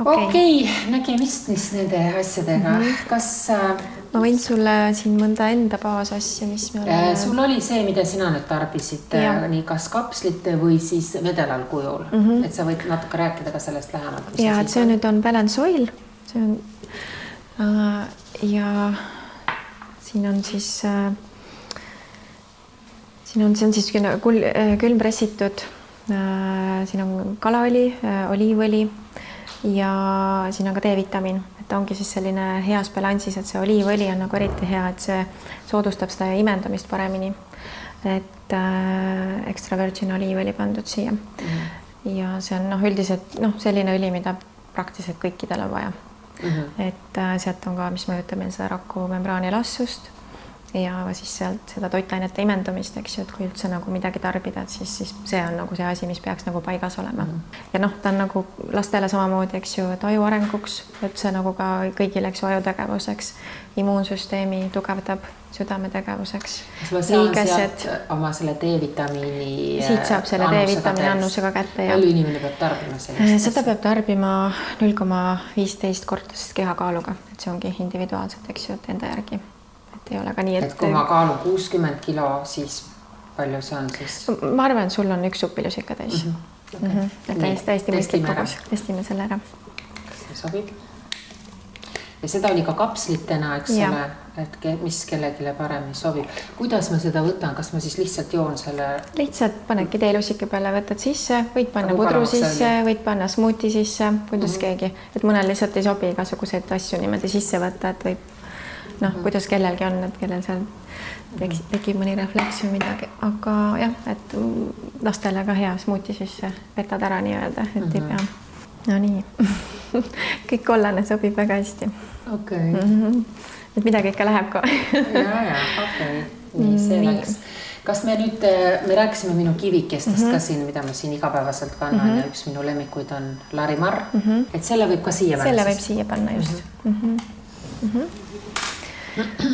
Okei, nägemist nende asjadega. Kas... Ma võin sulle siin mõnda enda baasasja, mis me oleme... Sul oli see, mida sina nüüd tarbisid, nii kas kapslite või siis vedelal kujul. Et sa võid natuke rääkida ka sellest lähemalt. Ja, et see nüüd on Balance Oil. See on... Ja siin on siis... See on siis külmpressitud, siin on kalaõli, oliivõli ja siin on ka D-vitamiin, et ongi siis selline heas balansis, et see oliivõli on nagu eriti hea, et see soodustab seda imendamist paremini, et extra virgin oliivõli pandud siia. Ja see on üldiselt selline õli, mida praktiliselt kõikidel on vaja. Et sealt on ka, mis mõjutab meil seda rakumembraani elastsust ja siis sealt seda toitainete imendumist, eks ju, et kui üldse nagu midagi tarbida, et siis see on nagu see asi, mis peaks nagu paigas olema. Ja ta on nagu lastele samamoodi, eks ju, et aju arenguks, et see nagu ka kõigile, eks ju, ajutegevuseks, immuunsüsteemi tugevdab südame tegevuseks. Ma saan sealt oma selle D-vitamiini siit saab selle D-vitamiini annusega kätte. Palju inimene peab tarbima sellist? Seda peab tarbima 0,15 kordasest kehakaaluga, et see ongi individuaalselt, eks ju, et enda järgi. Ei ole ka nii, et kui ma kaalun 60 kilo, siis palju see on siis? Ma arvan, et sul on üks supilus ikka täis. Et täiesti mõistlik kogus. Testime selle ära. Kas see sobib? Ja seda oli ka kapslitena, eks ole, et mis kellegile paremini sobib. Kuidas ma seda võtan? Kas ma siis lihtsalt joon selle? Lihtsalt panedki teelusike peale, võtad sisse, võid panna pudru sisse, võid panna smuuti sisse, kuidas keegi. Et mõnel lihtsalt ei sobi igasuguseid asju niimoodi sisse võtta, et võib kuidas kellelgi on, et kellel seal tekib mõni refleks või midagi, aga jah, et lastele ka hea smuuti sisse vetad ära nii-öelda, et ei pea. No nii, kõik kollane sobib väga hästi. Okei. Et midagi ikka läheb ka. Ja, okei. Nii, see läks. Kas me nüüd, me rääkisime minu kivikestest ka siin, mida ma siin igapäevaselt kannan ja üks minu lemmikuid on Larimar, et selle võib ka siia panna? Selle võib siia panna, just.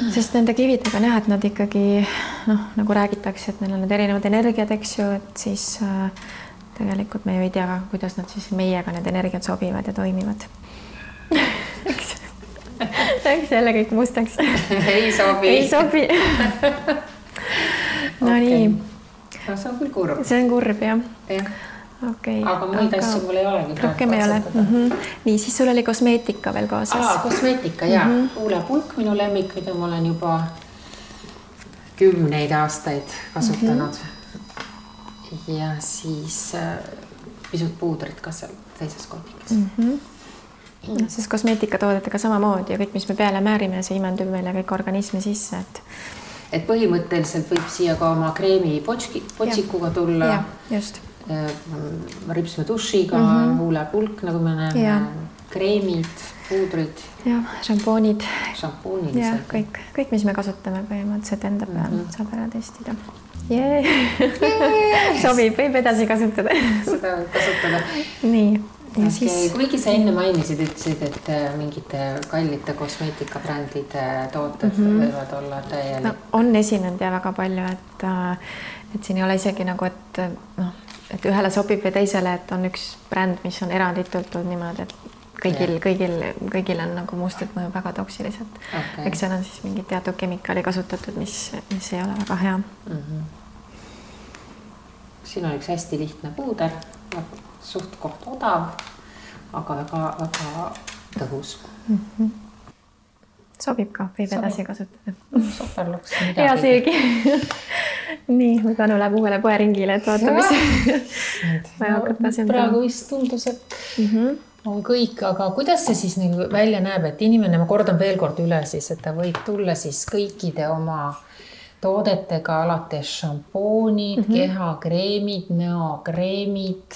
Sest nende kividega näha, et nad ikkagi, nagu räägitakse, et neil on need erinevad energiad, eks ju, et siis tegelikult me ju ei tea, kuidas nad siis meiega need energiad sobivad ja toimivad. Läks jälle kõik mustaks. Ei sobi. Ei sobi. No nii. No, see on küll kurb. See on kurb, jah. Okay. Aga muid asju mul ei olegi. Rohkem ei ole. Nii, siis sul oli kosmeetika veel kaasas. Kosmeetika, jah. Huulepulk minu lemmik, mida ma olen juba 10 aastaid kasutanud. Ja siis pisut puudrit ka seal teises kotikes. Sest kosmeetikatoodetega samamoodi ja kõik, mis me peale määrime, see imendub meile kõik organismi sisse. Et põhimõtteliselt võib siia ka oma kreemi potsikuga tulla. Ja, just. Ripsme dušiga, huulepulk, nagu me näeme, kreemid, puudrid. Ja, šampoonid. Ja, kõik, mis me kasutame põhimõtteliselt enda peal, saab ära testida. Sobib, võib edasi kasutada. Seda võib kasutada. Nii. Ja okay. Siis... Kuigi sa enne mainisid, ütlesid, et mingite kallite kosmeetikabrändide tooted võivad olla täielik. No, on esinenud ja väga palju, et siin ei ole isegi nagu, et ühele sobib või teisele, et on üks bränd, mis on eranditult niimoodi, et kõigil on nagu mustad mõju väga toksiliselt. Okay. Eks seal on siis mingi teatud kemikaali kasutatud, mis ei ole väga hea. Siin on üks hästi lihtne puuder, suht koht odav, aga väga tõhus. Sobib ka, võib edasi kasutada. Super luks midagi. Ja seegi. Nii, me Tanu läheb uuele poeringile, et vaata, mis praegu vist tundus, et on kõik, aga kuidas see siis välja näeb, et inimene, ma kordan veel kord üle siis, et ta võib tulla siis kõikide oma toodetega alates šampoonid, kehakreemid, näokreemid,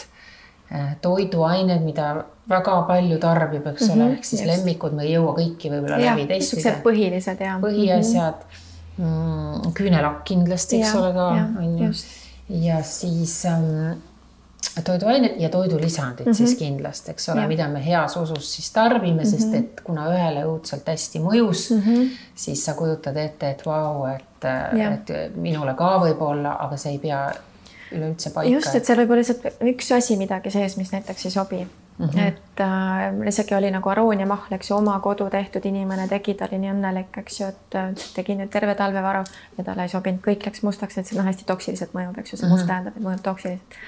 toiduained, mida väga palju tarbib, eks ole, ehk siis lemmikud, me ei jõua kõiki võib-olla läbi testida. Põhilised, jah. Põhiasjad, küünelakk kindlasti, eks ole ka. Ja siis toiduained ja toidulisandid siis kindlasti, eks ole, mida me heas usus siis tarbime, sest et kuna ühele õudselt hästi mõjus, siis sa kujutad ette, et vau, et minule ka võib olla, aga see ei pea üleüldse paika. Just, et seal võib olla lihtsalt üks asi midagi sees, mis näiteks ei sobi. Et isegi oli nagu arooniamahl, eks ju, oma kodu tehtud inimene tegi, ta oli nii õnnelik, eks ju, et tegi nüüd terve talvevaru ja talle ei sobinud, kõik läks mustaks, et see hästi toksiliselt mõjub, eks ju, see must tähendab, et mõjub toksiliselt.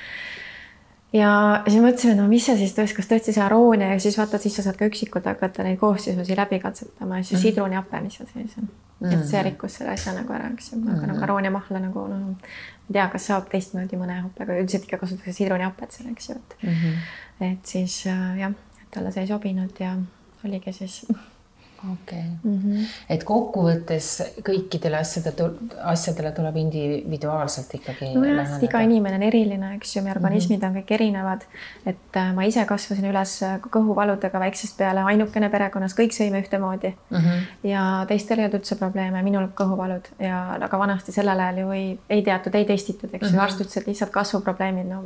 Ja siis mõtlesime, no mis see siis tõesti, kas tõesti see aroonia ja siis vaatad, siis sa saad ka üksikult hakata neid koostisusi läbi katsetama ja siis sidruniape, mis seal sees on. Et see rikkus selle asja nagu ära, eks ju, aga nagu arooniamahla nagu, ma tea, kas saab teistmoodi mõne hapega, üldiselt ikka kasutatakse sidruniapet seal, eks ju, et siis jah, et talle see ei sobinud ja oligi siis. Okay. Et kokkuvõttes kõikidele asjadele tuleb individuaalselt ikkagi läheneda. Iga inimene on eriline, eks ju, meie organismid on kõik erinevad, et ma ise kasvasin üles kõhuvaludega väiksest peale, ainukene perekonnas, kõik sõime ühtemoodi ja teistel ei olnud üldse probleeme, minul kõhuvalud ja aga vanasti sellel ajal ju ei teatud, ei testitud, eks ju, arst ütles, et lihtsalt kasvuprobleemid,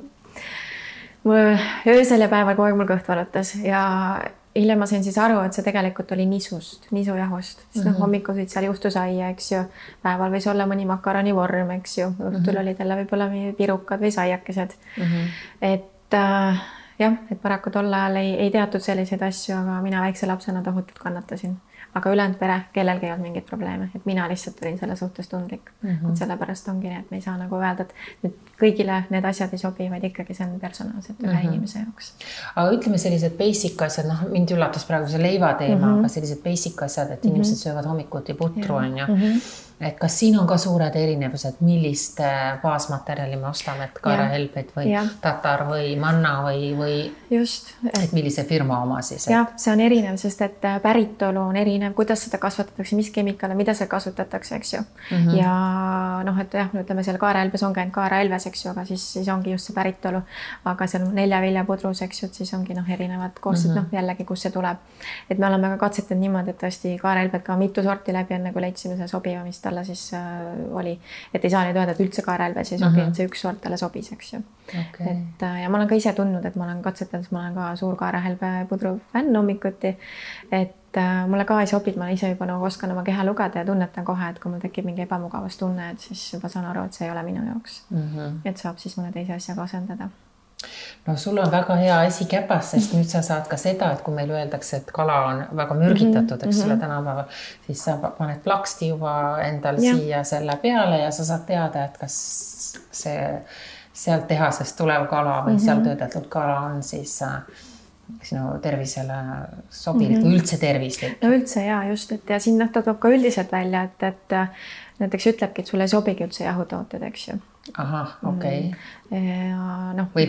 öösel ja päeval kogu aeg mul kõht valutas ja hiljem ma sain siis aru, et see tegelikult oli nisujahust, siis hommikul sõid seal juustusaia, eks ju, päeval võis olla mõni makaroni vorm, eks ju, õhtul olid jälle võib-olla pirukad või saiakesed. Et jah, et paraku tol ajal ei teatud selliseid asju, aga mina väikse lapsena tohutult kannatasin. Aga ülejäänud pere, kellelgi ei olnud mingeid probleeme, et mina lihtsalt olin selle suhtes tundlik. Et sellepärast ongi, et me ei saa nagu öelda, et kõigile need asjad ei sobi, vaid ikkagi see on personaalselt ühe inimese jaoks. Aga ütleme sellised basic asjad, mind üllatas praegu see leiva teema, aga sellised basic asjad, et inimesed söövad hommikuti putru on ju. Et kas siin on ka suured erinevused, millist baasmaterjali me ostame, et kaarahelbed või tatar või manna või just, et millise firma oma siis? Jah, see on erinev, sest et päritolu on erinev, kuidas seda kasvatatakse, mis kemikaale, mida seal kasutatakse, eks ju. Ja noh, et jah, ütleme seal kaarahelbes on käinud kaarahelves, eks ju, aga siis ongi just see päritolu, aga seal 4 viljapudrus, eks ju, et siis ongi erinevad koosted, jällegi, kus see tuleb. Et me oleme ka katsetanud niimoodi, et tõesti kaarahelbed ka mitu sorti läbi enne, kui leidsime see sobiva, mis talle siis oli, et ei saa nüüd öelda, et üldse kaarahelves ei sobi, et see üks sort talle sobis, eks ju. Okay. Et, ja ma olen ka ise tundnud, et ma olen katsetanud, ma olen ka suur kaarahelbe pudru fänn hommikuti, et mulle ka ei sobi, ma ise juba nagu oskan oma keha lugeda ja tunnetan kohe, et kui mul tekib mingi ebamugavast tunne, et siis juba saan aru, et see ei ole minu jaoks. Et saab siis mõne teise asjaga asendada. no sul on väga hea asi käpas, sest nüüd sa saad ka seda, et kui meil öeldakse, et kala on väga mürgitatud, eks ole, tänapäeval, siis sa paned plaksti juba endal siia selle peale ja sa saad teada, et kas see sealt tehasest tulev kala või seal töödeldud kala on siis sinu tervisele sobilik või üldse tervislik. No üldse ja just, et ja siin ta toob ka üldiselt välja, et näiteks ütlebki, et sulle ei sobigi üldse jahutooted, eks ju. Ahah, okei. No, või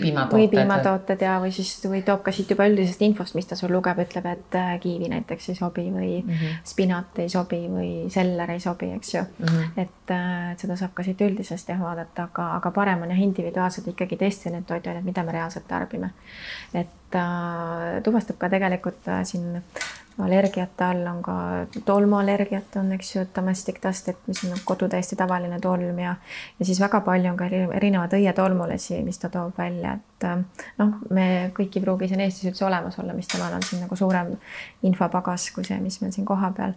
piimatooted ja või toob ka siit juba üldisest infost, mis ta sul lugeb, ütleb, et kiivi näiteks ei sobi või spinat ei sobi või seller ei sobi, eks ju. Et seda saab ka siit üldisest vaadata, aga parem on individuaalselt ikkagi testida need toiduained, mida me reaalselt tarbime. Et tuvastab ka tegelikult siin allergiate all on ka tolmuallergiat on, eks ju, domestic dust, et mis on kodu täiesti tavaline tolm ja siis väga palju on ka erinevad õietolmulesi, mis ta toob välja, et noh, me kõik ei pruugi siin Eestis üldse olemas olla, mis temal on siin nagu suurem infopagas kui see, mis meil siin koha peal.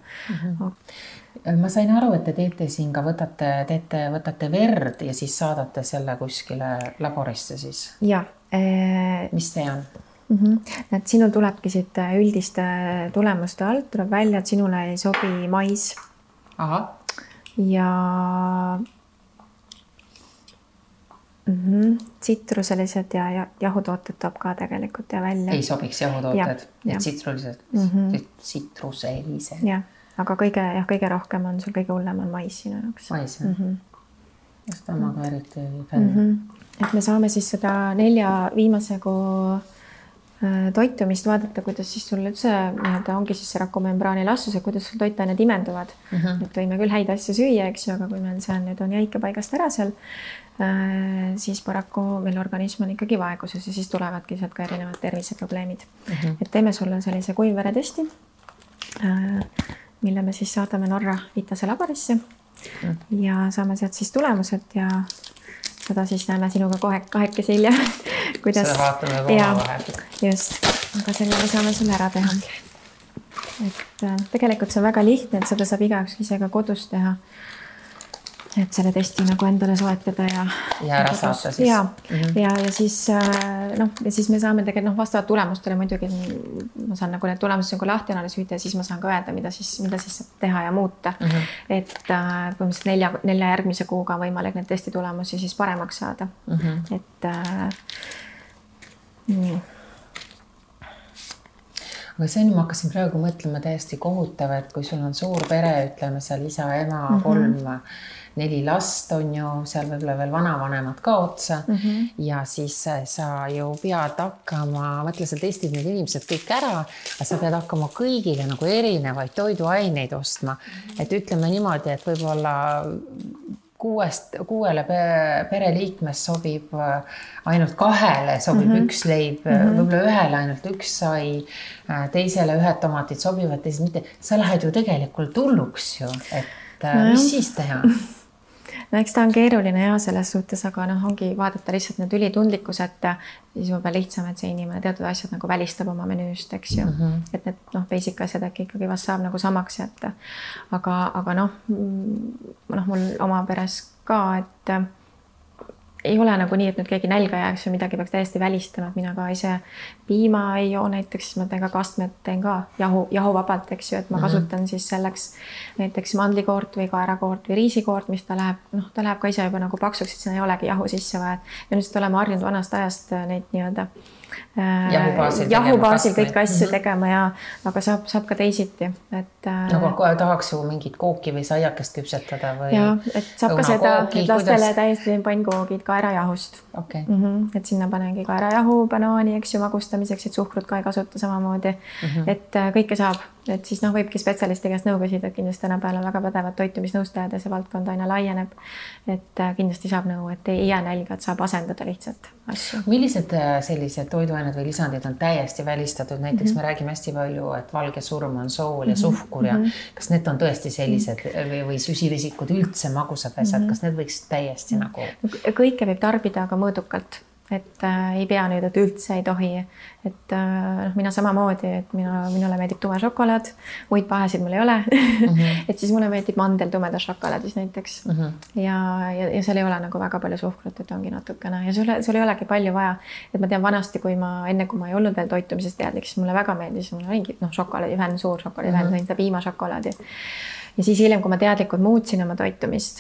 Ma sain aru, et te teete siin ka võtate verd ja siis saadate selle kuskile laborisse siis. Ja. Mis see on? Et sinul tulebki siit üldiste tulemuste alt, tuleb välja, et sinule ei sobi mais. Aha. Ja tsitruselised ja jahutooted toob ka tegelikult ja välja. Ei sobiks jahutooted, tsitruselised. Ja, aga kõige rohkem on sul kõige hullem on mais sinu jaoks. Mais, just omaga eriti fänn. Et me saame siis seda 4 viimase kuu toitumist vaadata, kuidas siis sul üldse ongi siis see rakumembraani elastsus, kuidas sul toitained imenduvad. Et võime küll häid asju süüa, eks ju, aga kui meil see nüüd on jäike paigast ära seal, siis paraku meil organism on ikkagi vaeguses ja siis tulevadki sealt ka erinevad terviseprobleemid. Et teeme sulle sellise kuivveretesti, mille me siis saadame Norra Vitase laborisse ja saame sealt siis tulemused ja seda siis näeme sinuga kohe kahekesi hiljem. Seda vaatame oma vahel. Just, aga selle me saame sulle ära teha. Et tegelikult see on väga lihtne, et seda saab igaüks ise ka kodus teha. Et selle testi nagu endale soetada ja ära saata siis. Ja siis me saame tegelikult vastavalt tulemustele muidugi ma saan nagu need tulemused nagu lahti analüüsida ja siis ma saan ka öelda, mida siis saab teha ja muuta. Et põhimõtteliselt 4 järgmise kuuga on võimalik need testi tulemusi siis paremaks saada. Et nii. Aga see ma hakkasin praegu mõtlema täiesti kohutav, et kui sul on suur pere, ütleme seal isa, ema, 3-4 last on ju, seal võib-olla veel vanavanemad ka otsa ja siis sa ju pead hakkama, mõtle, sa testid need inimesed kõik ära, aga sa pead hakkama kõigile nagu erinevaid toiduaineid ostma. Et ütleme niimoodi, et võib-olla 6 pereliikmest sobib ainult 2 sobib 1 leib, võib-olla 1 ainult 1 sai, teisele 1 tomatid sobivad, teised mitte. Sa lähed ju tegelikult hulluks ju, et mis siis teha? No eks ta on keeruline ja selles suhtes, aga ongi vaadata lihtsalt need ülitundlikkus, et siis võib lihtsam, et see inimene teatud asjad nagu välistab oma menüüst, eks ju. Et need basic asjad äkki ikkagi vast saab nagu samaks jätta. Aga mul oma peres ka, et ei ole nagu nii, et nüüd keegi nälga jääks või midagi peaks täiesti välistama, et mina ka ise piima ei joo näiteks, siis ma teen ka kastmed, teen ka jahuvabalt, eks ju, et ma kasutan siis selleks näiteks mandlikoort või kaerakoort või riisikoort, mis ta läheb ka ise juba nagu paksuks, et sinna ei olegi jahu sisse vaja. Ja nüüd oleme harjunud vanast ajast neid nii-öelda jahubaasil kõiki asju tegema ja aga saab ka teisiti. Nagu tahaks ju mingit kooki või saiakest küpsetada või ja, et saab ka seda, et lastele täiesti pannkoogid kaerajahust. Et sinna panengi kaerajahu, banaani, eks ju, magustamiseks, et suhkrut ka ei kasuta samamoodi. Et kõike saab, et siis võibki spetsialisti käest nõu küsida, et kindlasti tänapäeval on väga pädevad toitumisnõustajad ja see valdkond aina laieneb. Et kindlasti saab nõu, et ei jää nälga, et saab asendada lihtsalt asju. Millised sellised toiduained või lisandid on täiesti välistatud? Näiteks me räägime hästi palju, et valge surm on sool ja suhkur ja kas need on tõesti sellised või süsivesikud üldse magusad asjad, kas need võiks täiesti nagu? Kõike võib tarbida, aga mõõdukalt. et ei pea nüüd, et üldse ei tohi, et mina samamoodi, et minule meeldib tume šokolaad, muid pahesid mul ei ole et siis mulle meeldib mandel tumedas šokolaadis näiteks ja seal ei ole nagu väga palju suhkrut, et ongi natukene ja sul ei olegi palju vaja, et ma tean vanasti, enne kui ma ei olnud veel toitumisest teadlik, siis mulle väga meeldis, mul oligi šokolaadivenn, suur šokolaadivenn, sain seda piimašokolaadi. Ja siis hiljem, kui ma teadlikult muutsin oma toitumist,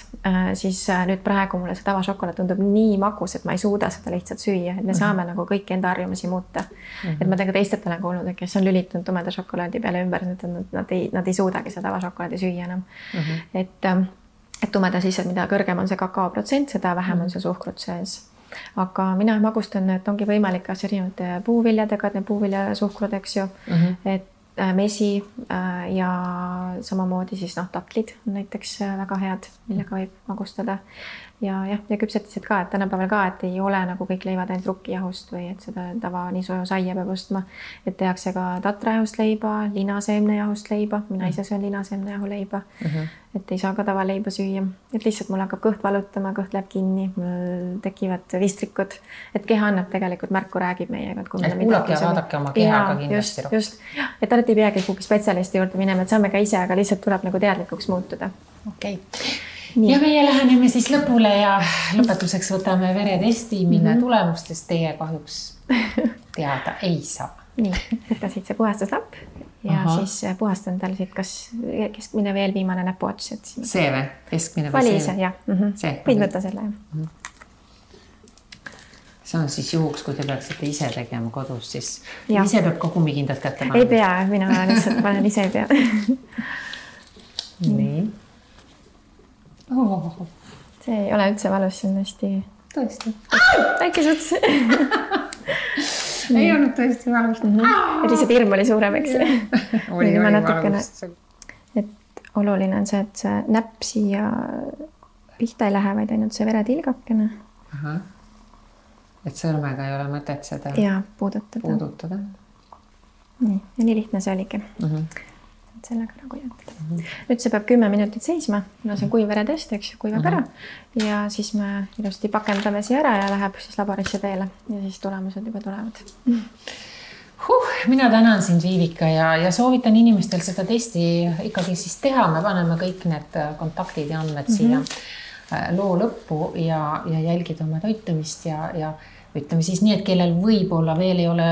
siis nüüd praegu mulle see tavašokolaad tundub nii magus, et ma ei suuda seda lihtsalt süüa, et me saame nagu kõiki enda harjumusi muuta. Et ma tegelikult teistelt olen kuulnud, et kes on lülitunud tumeda šokolaadi peale ümber, nad ei suudagi seda tavašokolaadi süüa enam. Et tumeda siis, et mida kõrgem on see kakaoprotsent, seda vähem on see suhkrut sees. Aga mina magustan, et ongi võimalik kas erinevate puuviljadega, et need puuviljasuhkrud, eks ju, et mesi ja samamoodi siis tatlid on näiteks väga head, millega võib magustada ja küpsetised ka, et tänapäeval ka, et ei ole nagu kõik leivad ainult rukkijahust või et seda tava nii soja saia peab ostma, et tehakse ka tatrajahust leiba, linaseemnejahust leiba, mina ise söön linaseemnejahu leiba, et ei saa ka tavaleiba süüa, et lihtsalt mul hakkab kõht valutama, kõht läheb kinni, mul tekivad vistrikud, et keha annab tegelikult märku, räägib meiega. Et kuulake ja vaadake oma kehaga kindlasti rohkem. Just, et alati ei peagi kuhugi spetsialisti juurde minema, et saame ka ise, aga lihtsalt tuleb nagu teadlikuks muutuda. Okei. Ja meie läheneme siis lõpule ja lõpetuseks võtame veretesti, mille tulemustest teie kahjuks teada ei saa. Nii, võtta siit see puhastuslapp ja siis puhastan tal siit kas keskmine veel viimane näpuots. See või? Keskmine või vali ise, jah. Võid võtta selle. See on siis juhuks, kui te peaksite ise tegema kodus, siis ise peab kogumikindad kätte panema. Ei pea, mina lihtsalt panen ise ei pea. Nii. See ei ole üldse valus, see on hästi... Tõesti. Väike suts. Ei olnud tõesti valus. Et lihtsalt hirm oli suurem, eks. Oli valus. Et oluline on see, et see näpp siia pihta ei lähe, vaid ainult see veretilgakene. Et sõrmega ei ole mõtet seda puudutada. Nii, ja nii lihtne see oligi. Sellega nagu jätta. Nüüd see peab 10 minutit seisma, kuna see on kuiv veretest, eks ju, kuivab ära ja siis me ilusti pakendame siia ära ja läheb siis laborisse teele ja siis tulemused juba tulevad. Mina tänan sind, Viivika, ja soovitan inimestel seda testi ikkagi siis teha. Me paneme kõik need kontaktid ja andmed siia loo lõppu ja jälgida oma toitumist ja ütleme siis nii, et kellel võib-olla veel ei ole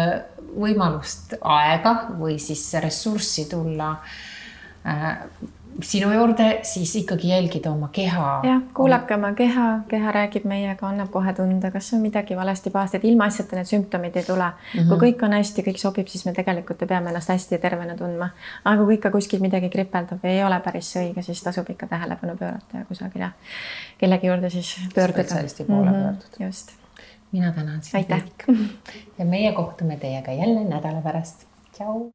võimalust aega või siis ressurssi tulla sinu juurde, siis ikkagi jälgida oma keha. Jah, kuulake oma keha räägib meiega, annab kohe tunda, kas on midagi valesti pahasti, et ilma asjata need sümptomid ei tule. Kui kõik on hästi, kõik sobib, siis me tegelikult peame ennast hästi tervena tundma. Aga kui ikka kuskil midagi kripeldab ja ei ole päris õige, siis tasub ikka tähelepanu pöörata ja kusagil kellegi juurde siis pöörduda. Spetsialisti poole pöörduda. Just. Mina tänan sind. Aitäh. Ja meie kohtume teiega jälle nädala pärast. Tšau!